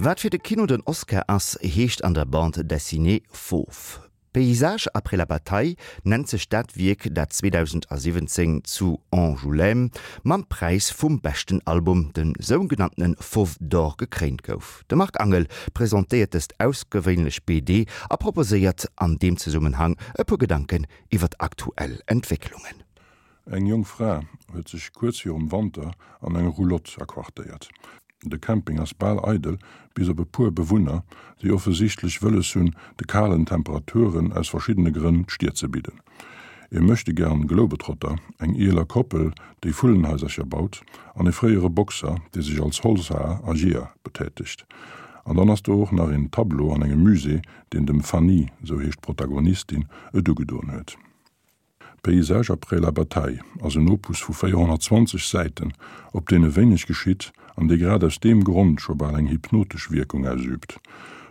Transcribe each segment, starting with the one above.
Wat fir de Kino den Oscar ass, heescht an der Bande dessinée Fauve. Paysages après la bataille nennt sech dat Wierk, dat 2017 zu Angoulême mam Präis vum beschten Album, dem sougenanntene Fauve d'Or, gekréint gouf. De Marc Angel presentéiert dëst ausgewéinlech BD a proposéiert an deem Zesummenhang e puer Gedanken iwwer aktuell Entwécklungen. Eng jonk Fra huet sech kuerz virum Wanter an eng Roulotte aquartéiert. De Camping ass bal eidel, bis op e puer Bewunner, déi offesichtlech wëlles hunn, de kalen Temperaturen aus verschiddene Grënn d'Stier ze bidden. E Möchtegern Globetrotter, eng eeler Koppel, déi Vullenhaisercher baut, an e fréiere Boxer, dee sech als Holzhaer a Jeeër betätegt. An dann ass do och nach een Tableau an engem Musée, deen dem Fanny, sou heescht d'Protagonistin, et ugedoen huet. Paysages après la bataille ass en Opus vu 420 Säiten, op deene wéineg geschitt an dee grad aus deem Grond scho bal eng hypnotesch Wierkung ausüübt.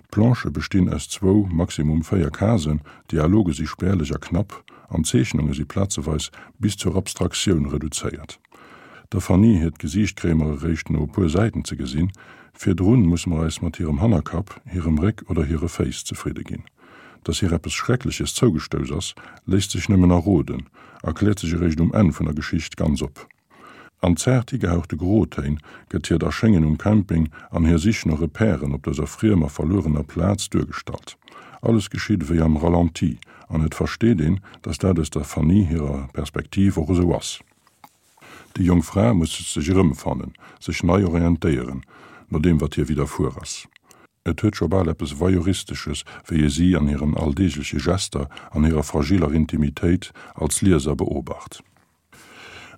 D'Planchë bestinn aus zwou, maximum 4 Casen, d'Dialoge si spärlech a knapp an d'Zeechnunge si plazeweis bis zur Abstraktioun reduzéiert. Der Fanny hiert Gesiicht kréie mer eréischt no e puer Säiten ze gesinn, virdrun musse mer eis mat hirem Hannerkapp, hirem Réck oder hire Féiss zefridde ginn. Dass hir eppes Schreckleches zougestouss ass, léisst sech nëmmen erroden a kläert sech eréischt um Enn vun der Geschicht ganz op. An zaart higehauchte Grotéin gëtt hiert Erschéngen um Camping an hir Sich no Repèren op dëser friemer, verluerener Plaz duergestallt. Alles geschitt ewéi am Ralenti an et versteet een, dass dat aus der Fanny hirer Perspektiv och esou ass. Déi jonk Fra muss sech erëmfannen, sech nei orientéieren, no deem wat hir widderfuer ass. Et huet scho bal eppes Voyeuristesches, wéi ee si an hiren alldeegleche Gester, an hirer fragiller Intimitéit als Lieser beobacht.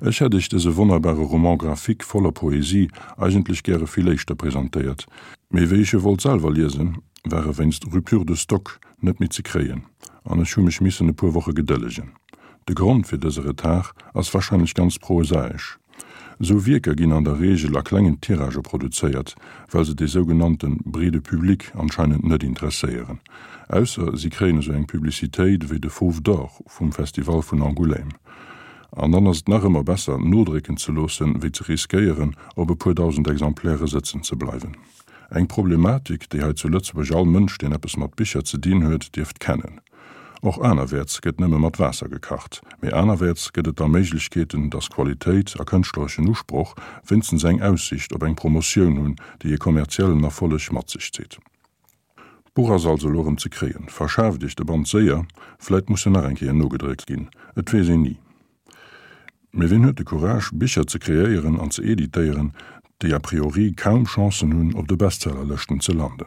Ech hätt Iech dëse wonnerbare Roman graphique voller Poesie eigentlech gäre vill éischter presentéiert, mee wéi ech e wollt selwer liesen, war e wéinst Rupture de stock net méi ze kréien an ech hu mech missen e puer Woche gedëllegen. De Grond fir dëse Retard ass warscheinlech ganz prosaesch. Esou Wierker ginn an der Reegel a klengen Tiragë produzéiert, well se dee sougenannte breede Public anscheinend net interesséieren. Ausser si kréien esou eng Publicitéit ewéi de Fauve d'Or vum Festival vun Angoulême. An dann ass et nach ëmmer besser, nodrécken ze loossen, wéi ze riskéieren, op e puer dausend Exemplaire sëtzen ze bleiwen. Eng Problematik, déi hei zu Lëtzebuerg all Mënsch, deen eppes mat Bicher ze dinn huet, dierft kennen. Och anerwäerts gëtt nëmme mat Waasser gekacht, mee anerwäerts gëtt et da Méiglechkeeten, dass Qualitéit a kënschtlereschen Usproch wéinstens eng Aussicht op eng Promotioun hunn, déi e kommerziellen Erfolleg mat sech zitt. D'Buch ass also elo erëm ze kréien. Verschaaft Iech de Band séier, vläit muss en nach eng Kéier nogedréckt ginn, et weess een ni. Mee wien huet de Courage, Bicher ze kreéieren an ze editéieren, déi a priori kaum Chancen hunn, op de Bestsellerlëschten ze landen?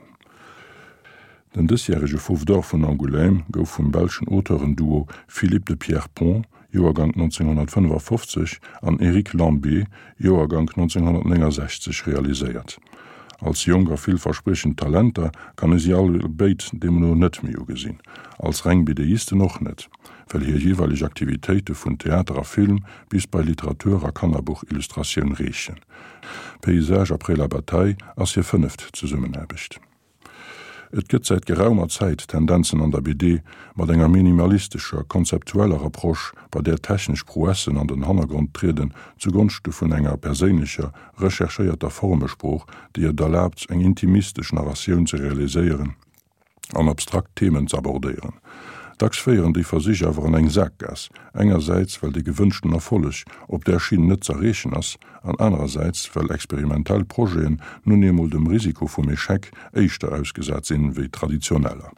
Den dësjärege Fauve d'Or vun Angoulême gouf vum belschen Auteurenduo Philippe de Pierrepont, Joergank 1955, an Eric Lambé, Joergank 1969, realiséiert. Als jonk a villverspriechend Talenter kann ee si all béid deemno net méi ugesinn, als reng BDisten och net, well hir jeeweileg Aktivitéite vun Theater a Film bis bei Literatur a Kannerbuchillustratioun reechen. Paysages après la bataille ass hir fënneft Zesummenaarbecht. Et gëtt säit geraumer Zäit Tendenzen an der BD mat enger minimalistescher, konzeptueller Approche, bei där technesch Prouessen an den Hannergrond trieden zugonschte vun enger perséinlecher, recherchéierter Formesprooch, déi et erlaabt, eng intimistesch Narratioun ze realiséieren an abstrakt Themen z'abordéieren. Dacks féieren déi Versich awer an eng Saakgaass, engersäits well de gewënschten Erfolleg op där Schinn net z'erreechen ass, an anerersäits well experimentell Projeten nun eemol dem Risiko vum Echec éischter ausgesat sinn, wéi traditioneller.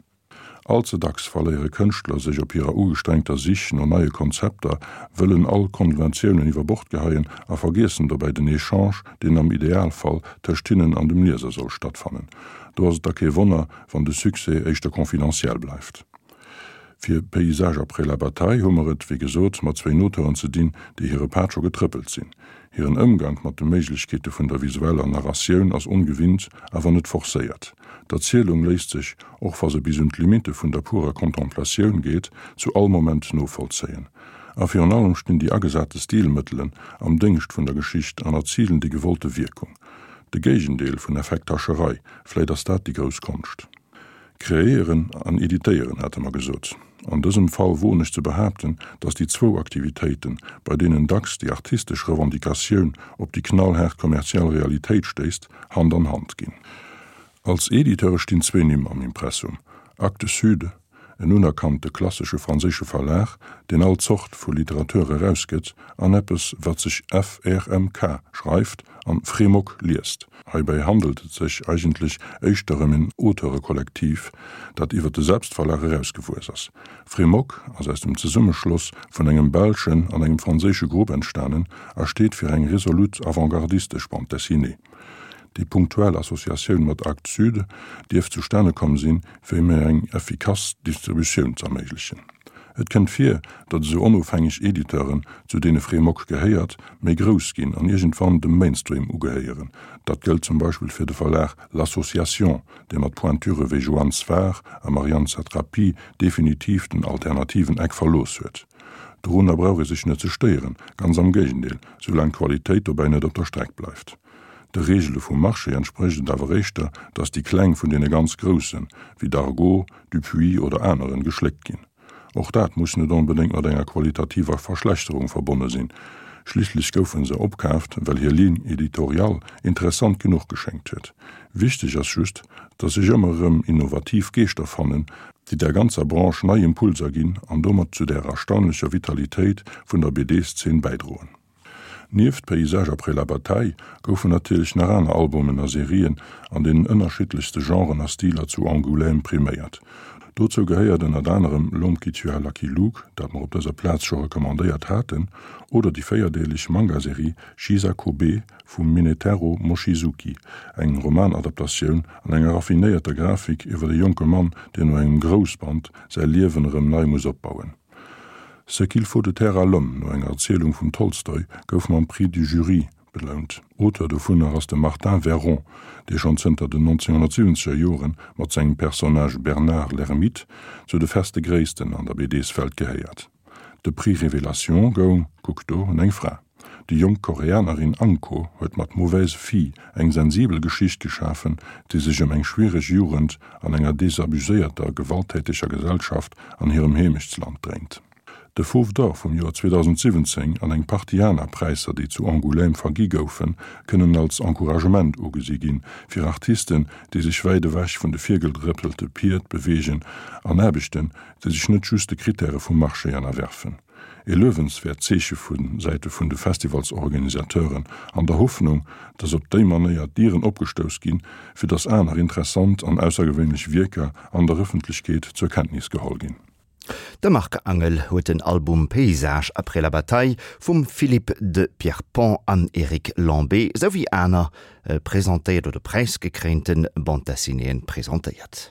All ze dacks verléiere Kënschtler sech op hirer ugestrengter Sich no neie Konzepter, wëllen all Konventiounen iwwer Bord geheien a vergiessen dobäi den Echange, deen am Idealfall tëscht hinnen an dem Lieser soll stattfannen. Do ass et da kee Wonner, wann de Succès éischter confidentiel bleift. Fir Paysages après la bataille hu mer et, wéi gesot, mat zwéin Auteuren ze dinn, déi hire Pad scho getrëppelt sinn. Hiren Ëmgank mat de Méiglechkeete vun der visueller Narratioun ass ongewinnt, awer net forcéiert. D'Erzielung léisst sech, och wa se bis un d'Limitte vun der purer Contemplatioun geet, zu all Moment novollzéien. A virun allem stinn déi agesate Stilmëttelen am Déngscht vun der Geschicht an erzilen déi gewollte Wierkung. De Géigendeel vun Effekthascherei, vläit ass dat déi grouss Konscht. Kreéieren an editéieren, hate mer gesot. An dësem Fall woen ech ze behaapten, datt déi zwou Aktivitéiten, bei deenen dacks déi artistesch Revendicatioun op déi knallhaart kommerziell Realitéit stéisst, Hand an Hand ginn. Als Editeure stinn zwee Nimm am Impressum, Actes Sud, en unerkannte klassesche franséische Verlag, deen all Zort vu Literatur erausgëtt, an eppes, wat sech FRMK schreift an Frémok liest. Heibäi handelt et sech eigentlech éischter ëm en Auteurekollektiv, dat iwwer de Selbstverlag erausgewuess ass. Frémok ass aus dem Zesummeschloss vun engem belschen an engem franséische Grupp entstanen a steet fir eng resolut avantgardistesch Bande dessinée. Déi punktuell Associatioun mat Actes Sud dierft zustane komm sinn, fir méi eng effikass Distributioun z'erméiglechen. Et kënnt vir, datt esou onofhängeg Editeuren, zu deene Frémok gehéiert, méi grouss ginn an iergendwann dem Mainstream ugehéieren. Dat gëllt zum Beispill fir de Verlag L'Association, dee mat Pointure wéi Joann Sfar a Marianne Satrapi definitiv den alternativen Eck verlooss huet. Dorunner brauch ee sech net ze stéieren, ganz am Géigendeel, soulaang d'Qualitéit dobäi net op der Streck bleift. De Reegele vum Marché entsprécht et awer éischter, datt déi Kleng vun deene ganz Groussen, wéi Dargaud, Dupuis oder aneren, geschléckt ginn. Och dat muss net onbedéngt mat enger qualitativer Verschlechterung verbonne sinn, schliisslech goufe se opkaaft, well hir Ligne éditoriale interessant genuch geschéngt huet. Wichteg ass just, datt sech ëmmer erëm innovativ Geeschter fannen, déi der ganzer Branche nei Impulser ginn an domat zu der erstaunlecher Vitalitéit vun der BD-Szene bäidroen. Nieft Paysages après la bataille goufen natierlech nach aner Albumen a Serien an deenen ënnerschiddlechste Genren a Stiler zu Angoulême priméiert. Dozou gehéiert ënnert anerem L'homme qui tua Lucky Luke, dat mer op dëser Plaz scho recommandéiert haten, oder déi véierdeeleg Manga-Serie Chisakobe vum Minetaro Mochizuki, eng Romanadaptatioun an enger raffinéierter Grafik iwwer e jonke Mann, deen no engem Groussband säi Liewen erëm nei muss opbauen. Ce qu'il faut de terre à l'homme, no enger Erzielung vum Tolstoi, gouf mam Prix du Jury belount. Auteur dovunner ass de Martin Verron, dee schonn zënter den 1970er Jore mat sengem Personnage Bernard l'Ermite zu de feste Gréissten an der BDs-Welt gehéiert. De Prix Révélation goung, kuck do, un eng Fra. Déi jonk Koreanerin Anko huet mat Mauvaise fille eng sensibel Geschicht geschafen, déi sech ëm eng schwiereg Jugend an enger desabuséierter, gewalttäteger Gesellschaft an hirem Heemechtsland dréint. De Fauve d'Or vum Joer 2017 an eng Partie aner Präisser, déi zu Angoulême vergi goufen, kënnen als Encouragement ugesi ginn, fir Artisten, déi sech wäit ewech vun de virgedrëppelte Pied beweegen an Aarbechten, déi sech net just de Krittäre vum Marché ënnerwerfen. E luewenswäert Zeeche vu Säite vun de Festivalsorganisateuren, an der Hoffnung, datt op déi Manéier d'Dieren opgestouss ginn, fir datt aner interessant an aussergewéinlech Wierker an der Ëffentlechkeet zur Kenntnis geholl ginn. De Marc Angel huet den Album Paysages après la bataille vum Philippe de Pierrepont an Eric Lambé souwéi aner presentéiert oder präisgekréinte Bande-dessinéeën presentéiert.